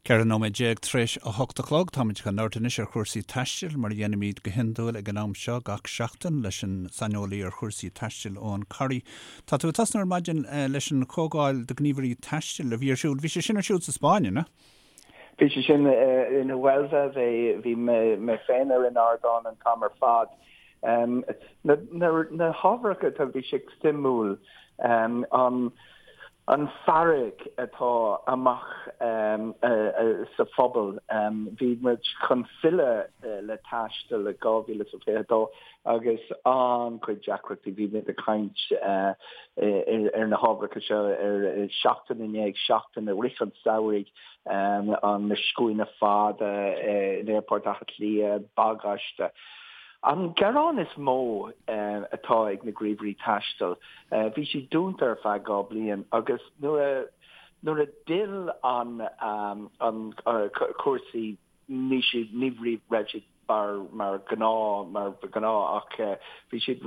14 nóiméad tar éis 8 a chlog. Táimid chun labhairt anois ar chúrsaí taistil, mar a dhéanaimid go hiondúil ag an am seo gach seachtain leis an saineolaí ar chúrsaí taistil, Eoin Corry. Tá tú ag tosnú ar maidin leis an chomhdháil do ghníomhairí taistil a bhí ar siúl. Bhí sé sin ar siúl sa Spáinn, an ea? Bhí sé sin in Huelva. Bhí mé féin ar an ardán an t-am ar fad. Na hábharacha atá, bhí sé suimiúil an an fearg atá amach sa phobal. Bhí muid chun filleadh le taisteal i 2022 agus an-chuid deacrachtaí. Bhí muid ag caint ar na hábharacha seo ar seachtain i ndiaidh seachtaine i rith an samhraidh, an na scuaine fada in Aerfort Átha Cliath, bagáiste. An gearán is mó atá ag na gníomhairí taistil, bhí siad dúnta ar feadh 2 bliain agus nuair a nuair a d'fhill an an cúrsaí ní siad ní raibh siad mar mar gnáth mar ba ghnáth ach bhí siad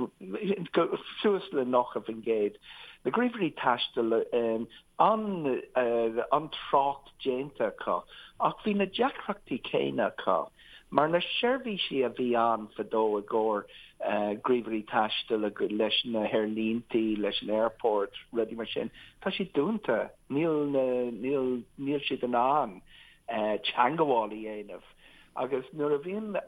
suas le 90%. Na gníomhairí taistil an an trácht déanta acu ach bhí na deacrachtaí céanna acu. Mar na seirbhísí a bhí ann fadó i gcomhair gníomhairí taistil leis na haerlíntí, leis an airport, rudaí mar sin, tá siad dúnta. Níl na, níl, níl siad in ann teangabháil a dhéanamh. Agus nuair a bhíonn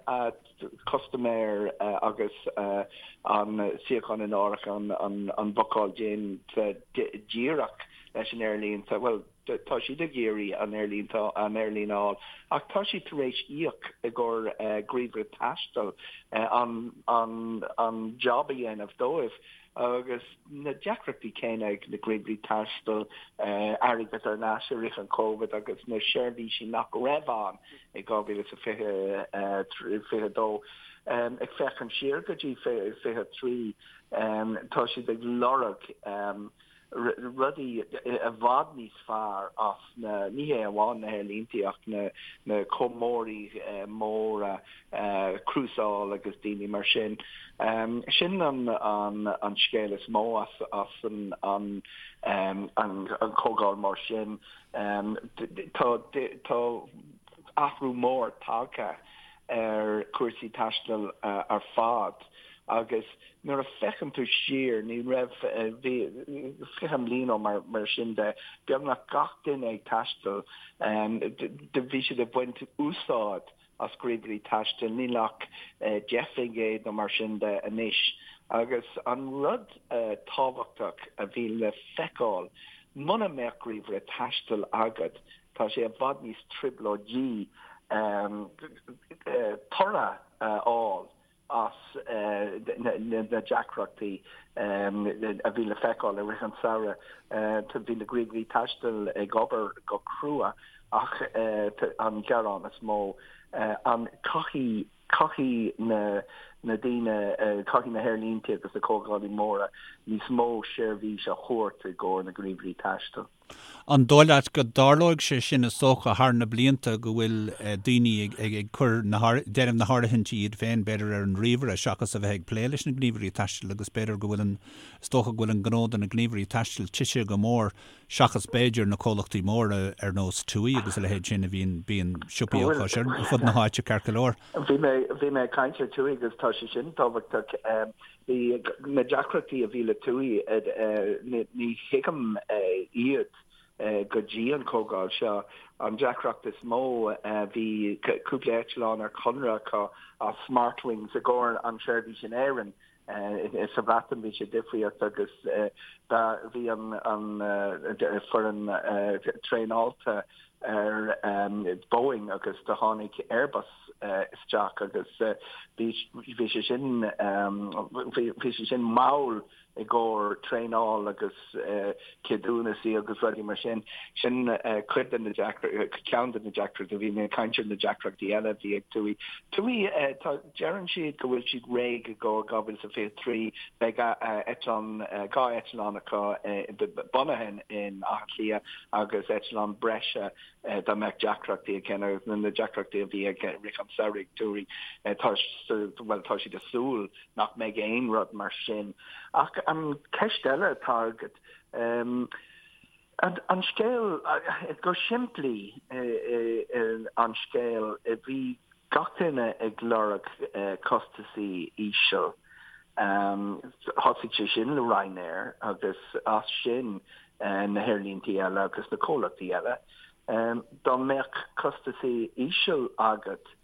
custaiméir agus an suíochán in áirithe, an, an bhookáil déanta díreach leis an aerlínte, bhuel, Tá siad ag iarraidh an aerlíne an aerlíne a fháil ach tá siad tar éis íoc i gcomhair gníomhaire taistil an an an job a dhéanamh dóibh agus na deacrachtaí céanna ag na gníomhairí taistil airgead ar ais i rith an Covid agus na seirbhísí nach raibh ann i 2022. Ag féachaint siar go dtí 23 tá siad ag lorg rudaí i bhfad níos fearr as na, ní hé amháin na haerlíntí ach na na comhairleoirí móra, crúsáil agus daoine mar sin. Sin an an an scéal is mó as as an an an an chomhdháil mar sin. Tá tá athrú mór tagtha ar chúrsaí taistil ar fad agus Nuair a féachann tú siar, ní raibh, bhí, 20 mbliain ó mar, mar sin de, beagnach gach duine ag taisteal, bhí siad ag baint úsáid as gníomhairí taistil, níl ach 10% nó mar sin de anois. Agus an rud tábhachtach a bhí le feiceáil, muna mbeadh gníomhaire taistil agat, tá sé i bhfad níos trioblóidí toradh a fháil. as na deacrachtaí a bhí le feiceáil i rith an tsamhraidh. Bhí na gníomhairí taistil ag obair go crua ach an gearán is mó, an caithfidh caithfidh na na daoine, caithfidh na haerlínte agus na comhdhálaí móra níos mó seirbhís a thabhairt i gcomhair na gníomhairí taistil. An dóigh leat go dtarlóidh sé sin is dócha thar na blianta go bhfuil daoine ag ag cur na déanamh na háirithintí iad féin b'fhéidir ar an ríomhaire seachas a bheith ag plé leis na gníomhairí taistil agus b'fhéidir go bhfuil an is dócha go bhfuil an gnó do na gníomhairí taistil tite go mór seachas b'fhéidir na comhlachtaí móra ar nós TUI agus a leithéid sin a bhíonn bíonn siopaí acu ar fud na háite ceart go leor. Bhí mé bhí mé ag caint ar TUI agus tá sé sin tábhachtach. Bhí na deacrachtaí a bhí le TUI, ní thuigim iad go dtí an chomhdháil seo. An deacracht is mó, bhí cúpla eitleán ar conradh acu as Smartwings i gcomhair an seirbhís in Éirinn. Sa Bhreatain bhí sé difríocht agus bhí an foireann traenáilte ar Boeing agus do tháinig Airbus isteach agus bhí bhí sé sin bhí sé sin mall i gcomhair traenáil agus ceadúnasaí agus rudaí mar sin. Sin cuid de na ceann de na deacrachtaí bhí mé ag caint ar na deacrachtaí eile a bhí ag TUI. TUI tá deireann siad go bhfuil siad réidh i gcomhair 2023 beidh eitleán 2 eitleán acu bunaithe in Áth Cliath agus eitleán breise dá mbeadh deacrachtaí ag agus na deacrachtaí a bhí ag rith an tsamhraidh TUI tá bhuel tá siad ag súil nach mbeidh aon rud mar sin. Ach an ceist eile atá agat. An scéal, go simplí, an scéal, bhí gach duine ag lorg costasaí íseal. Thosaigh sé sin le Ryanair agus as sin na haerlíntí eile agus na comhlachtaí eile. Dá mbeadh costasaí íseal agat,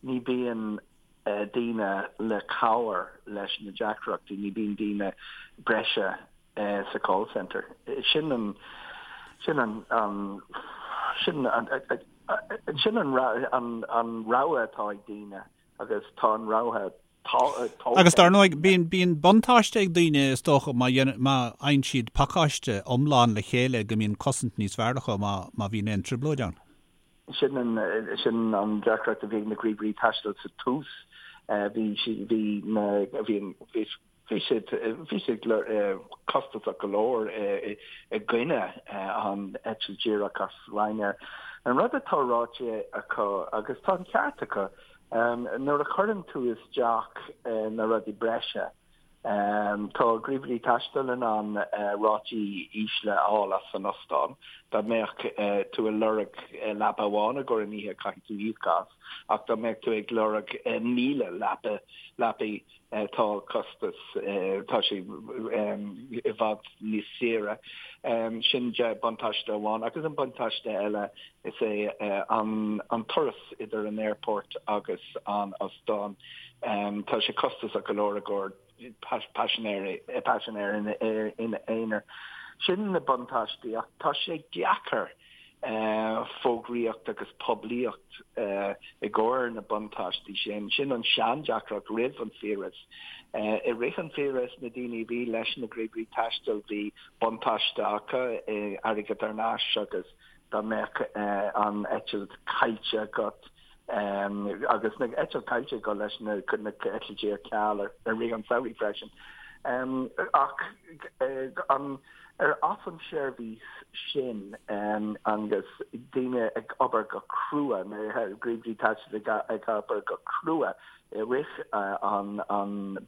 ní bíonn daoine le cabhair leis na deacrachtaí, ní bíonn daoine breise sa call centre. Sin an, sin an, an, sin an, sin an, an, an rogha atá ag daoine agus tá an rogha tógtha. Agus dar ndóigh, bíonn, bíonn buntáiste ag daoine is dócha má dhéanann, má fhaigheann siad pacáiste iomlán le chéile go mbíonn cosaint níos fearr acu má, má bhíonn aon trioblóid ann. Sin an, sin an deacracht a bhí ag na gníomhairí taistil sa tús. Bhí, bhí na, bhí an, bhí, Bhí siad, bhí siad costasach go leor i gcoinne an eitilt díreach as Ryanair. An rud atá ráite acu, agus tá an ceart acu, nuair a chuireann tú isteach na rudaí breise, tá gníomhairí taistil in ann rátaí ísle a fháil as an ostán. Dá mbeadh tú ag lorg leapa amháin i gcomhair an oíche, caithfidh tú íoc as, ach dá mbeadh tú ag lorg 1,000 leapa, leapaí, Tá costas, tá sé i bhfad níos saoire. Sin buntáiste amháin. Agus an buntáiste eile is é an turas idir an aerfort agus an ostán. Tá sé costasach go leor i gcomhair paisinéirí, paisinéir ina aonar. Sin na buntáistí ach tá sé deacair fógraíocht agus poiblíocht i gcomhair na buntáistí sin. Sin an seandeacracht roimh an fiabhras. I rith an fiabhrais, na daoine a bhí leis na gníomhairí taistil, bhí buntáiste acu, airgead thar n-ais agus dá mbeadh an eitilt caillte agat, agus na eitilt caillte acu leis na eitiltí ar ceal i rith an samhraidh freisin. Ach an ar as an seirbhís sin agus daoine ag obair go crua, na gníomhairí taistil ag obair go crua i rith an an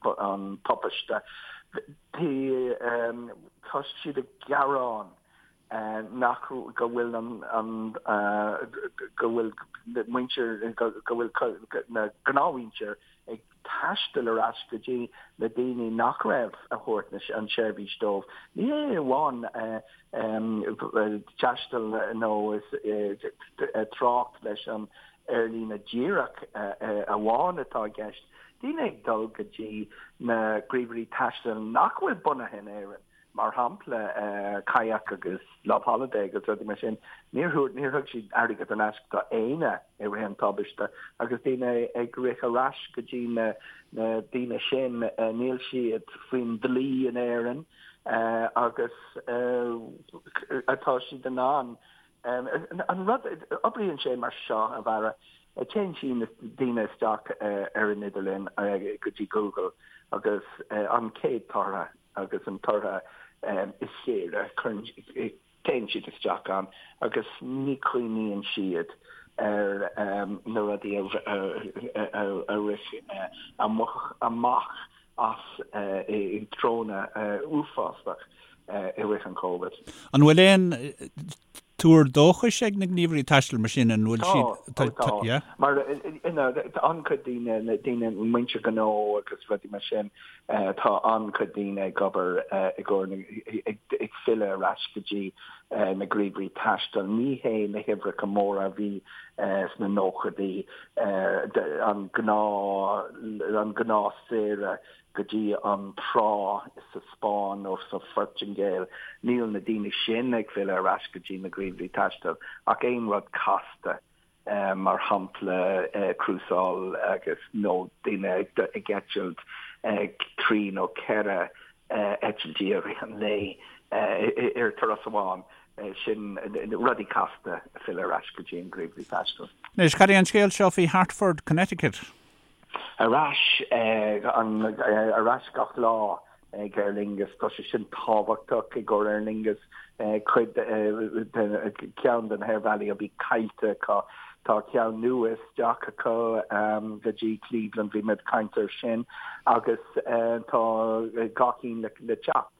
tubaiste, tá siad ag gearán nach go bhfuil an an go bhfuil muintir go bhfuil na gnáthmhuintir ag taisteal ar ais go dtí na daoine nach raibh a thabhairt an tseirbhís dóibh. Ní hé amháin taisteal nó trácht leis an aerlíne díreach amháin atá i gceist. Daoine ag dul go dtí na gníomhairí taistil nach bhfuil bunaithe in Éirinn. Mar shampla, Kayak agus Loveholiday agus rudaí mar sin, níor thug, níor thug siad airgead thar n-ais do éinne i rith an tubaiste agus daoine ag rith ar ais go dtí na na daoine sin, níl siad faoin dlí in Éirinn agus atá siad in ann an rud, oibríonn sé mar seo, a Bharra, téann siad daoine isteach ar an idirlíon go dtí Google agus an chéad tortha agus an tortha is saoire, cuireann, téann siad isteach ann agus ní chuimhníonn siad ar na rudaí a rith amach as i dtreonna uafásach i rith an Covid. An bhfuil aon tuar dóchais ag na gníomhairí taistil mar sin, an bhfuil siad, tá, tá, yeah? Mar tá an-chuid daoine, daoine, muintir gnó agus rudaí mar sin, tá an-chuid daoine ag obair i gcomhair, ag filleadh ar ais go dtí na gníomhairí taistil. Ní hé na huimhreacha móra a bhí sna nóchaidí, an gnáth, an gnáth saoire go dtí an trá sa Spáinn nó sa Phortaingéil. Níl na daoine sin ag filleadh ar ais go dtí na gníomhairí taistil ach aon rud casta, mar shampla crúsáil agus nó daoine ag eitilt trí nó ceithre eitiltí i rith an lae ar turas amháin. Sin rudaí casta ag filleadh ar ais go dtí an gníomhairí taistil. Anois, cad é an scéal seo faoi Hartford, Connecticut? Ar ais, ar ais gach lá ag Aer Lingus. Tá sé sin tábhachtach i gcomhair Aer Lingus. Cuid de, ceann de na haerbhealaí a bhí caillte acu. Tá ceann nua isteach acu go dtí Cleveland, bhí mé ag caint air sin, agus tá dhá cinn le teacht.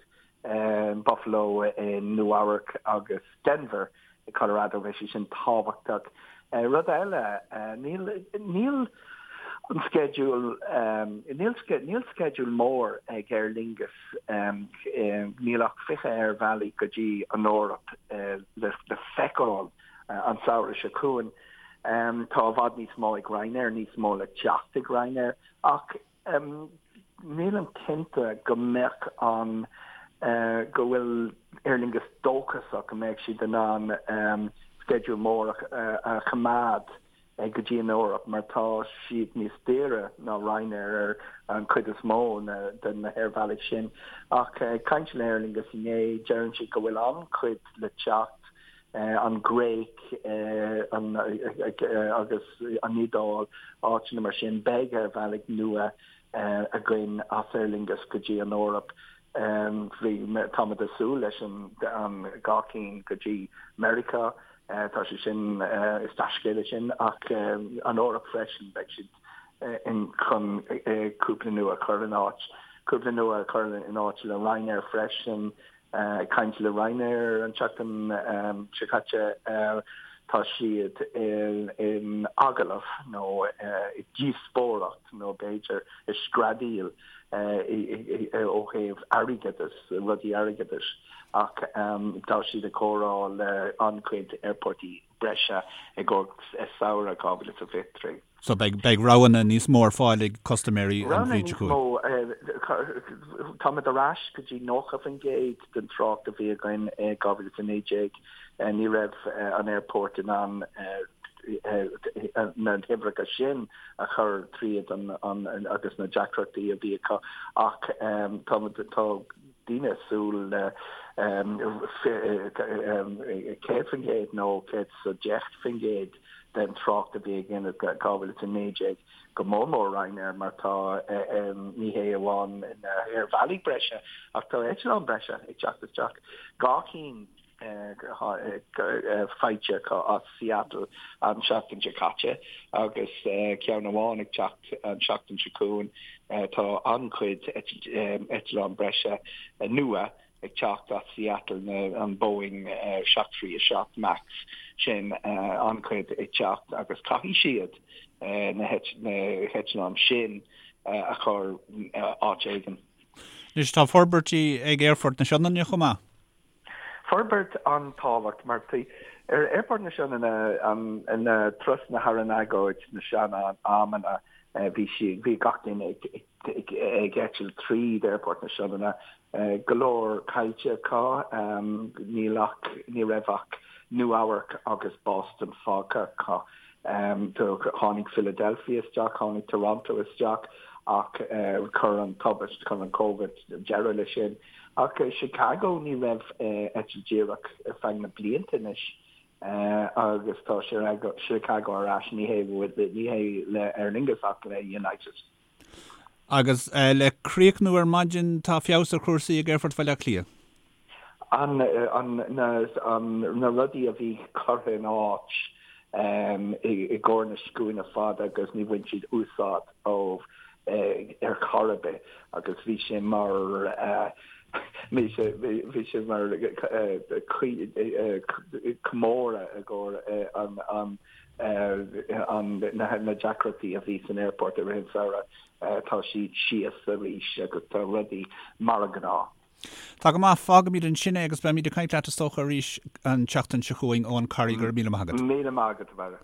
Buffalo i Nua Eabhrac agus Denver i Colorado, beidh sé sin tábhachtach. Rud eile, níl, níl an sceideal, níl, níl sceideal mór ag Aer Lingus, níl ach 20 aerbhealaí go dtí an Eoraip le feiceáil an samhradh seo chugainn. Tá i bhfad níos mó ag Ryanair, níos mó le teacht ag Ryanair, ach nílim cinnte go mbeadh an, go bhfuil Aer Lingus dóchasach go mbeidh siad in ann sceideal mór a choimeád go dtí an Eoraip mar tá siad níos daoire ná Ryanair ar an chuid is mó de na haerbhealaigh sin. Ach ag caint le Aer Lingus inné, deireann siad go bhfuil an-chuid le teacht an Ghréig agus an Iodáil, áiteanna mar sin. Beidh aerbhealaigh nua againn as Aer Lingus go dtí an Eoraip. Bhí, táimid ag súil leis an 2 cinn go dtí Meiriceá. Tá sé sin, is dea-scéala sin, ach an Eoraip freisin, beidh siad in chun cúpla nua a chur in áit, cúpla nua a chur in áit le Ryanair freisin. Ag caint le Ryanair an tseachtain seo caite, tá siad in agallamh nó i díospóireacht nó b'fhéidir i screadaíl ó thaobh airgeadais, rudaí airgeadais ach tá siad ag comhrá le an-chuid aerportaí breise i gcomhair samhradh 2023. So beidh, beidh roghanna níos mó ar fáil ag custaiméirí an Roghanna bhliain seo níos chugainn. mó, táimid ar ais go dtí 90% den trácht a bhí againn i 2019. Ní raibh an aerport in ann na huimhreacha sin a chur tríd an agus na deacrachtaí a bhí acu ach táimid, tá daoine ag súil le 100% nó 110% den trácht a bhí againn i 2019, go mór mór Ryanair mar tá, ní hé amháin na haerbhealaí breise ach tá eitleáin breise ag teacht isteach, 2 cinn faighte acu as Seattle an tseachtain seo caite agus ceann amháin ag teacht an tseachtain seo chugainn. Tá an-chuid eitleán breise nua ag teacht as Seattle, an Boeing 737 Max sin, an-chuid ag teacht agus caithfidh siad na heitleáin sin a chur áit éigin. Anois tá forbairtí ag Aerfort na Sionainne chomh maith. Forbairt an-tábhacht mar ar Aerfort na Sionainne na turasanna thar an agóid na sean-amanna bhí sí bhí gach duine ag ag eitilt tríd Aerfort na Sionainne go leor caillte acu níl ach ní raibh ach Nua Eabharc agus Boston fágtha acu. Tháinig Philadelphia isteach, tháinig Toronto isteach ach chuir an tubaist, chuir an Covid deireadh leis sin. Ach Chicago ní raibh eitilt díreach ar feadh na blianta anois agus tá Chicago ar ais, ní hé ní hé le Aer Lingus ach le United. Agus le críochnú ar maidin tá feabhas ar chúrsaí ag Aerfort Bhaile Átha Cliath. An an na an na rudaí a bhí curtha in áit i gcomhair na scuaine fada agus ní bhain siad úsáid ó ar chor ar bith agus bhí sé mar bhí sé bhí sé mar comóradh i gcomhair an an an na deacrachtaí a bhí san aerfort i rith an samhradh. Tá siad síos arís agus tá rudaí mar a gnáth. Tá go maith, fágfaimid ansin é agus beimid ag caint leat is dócha arís an tseachtain seo chugainn Eoghan Corry, go raibh míle maith agat. Míle maith agat, a Bharra.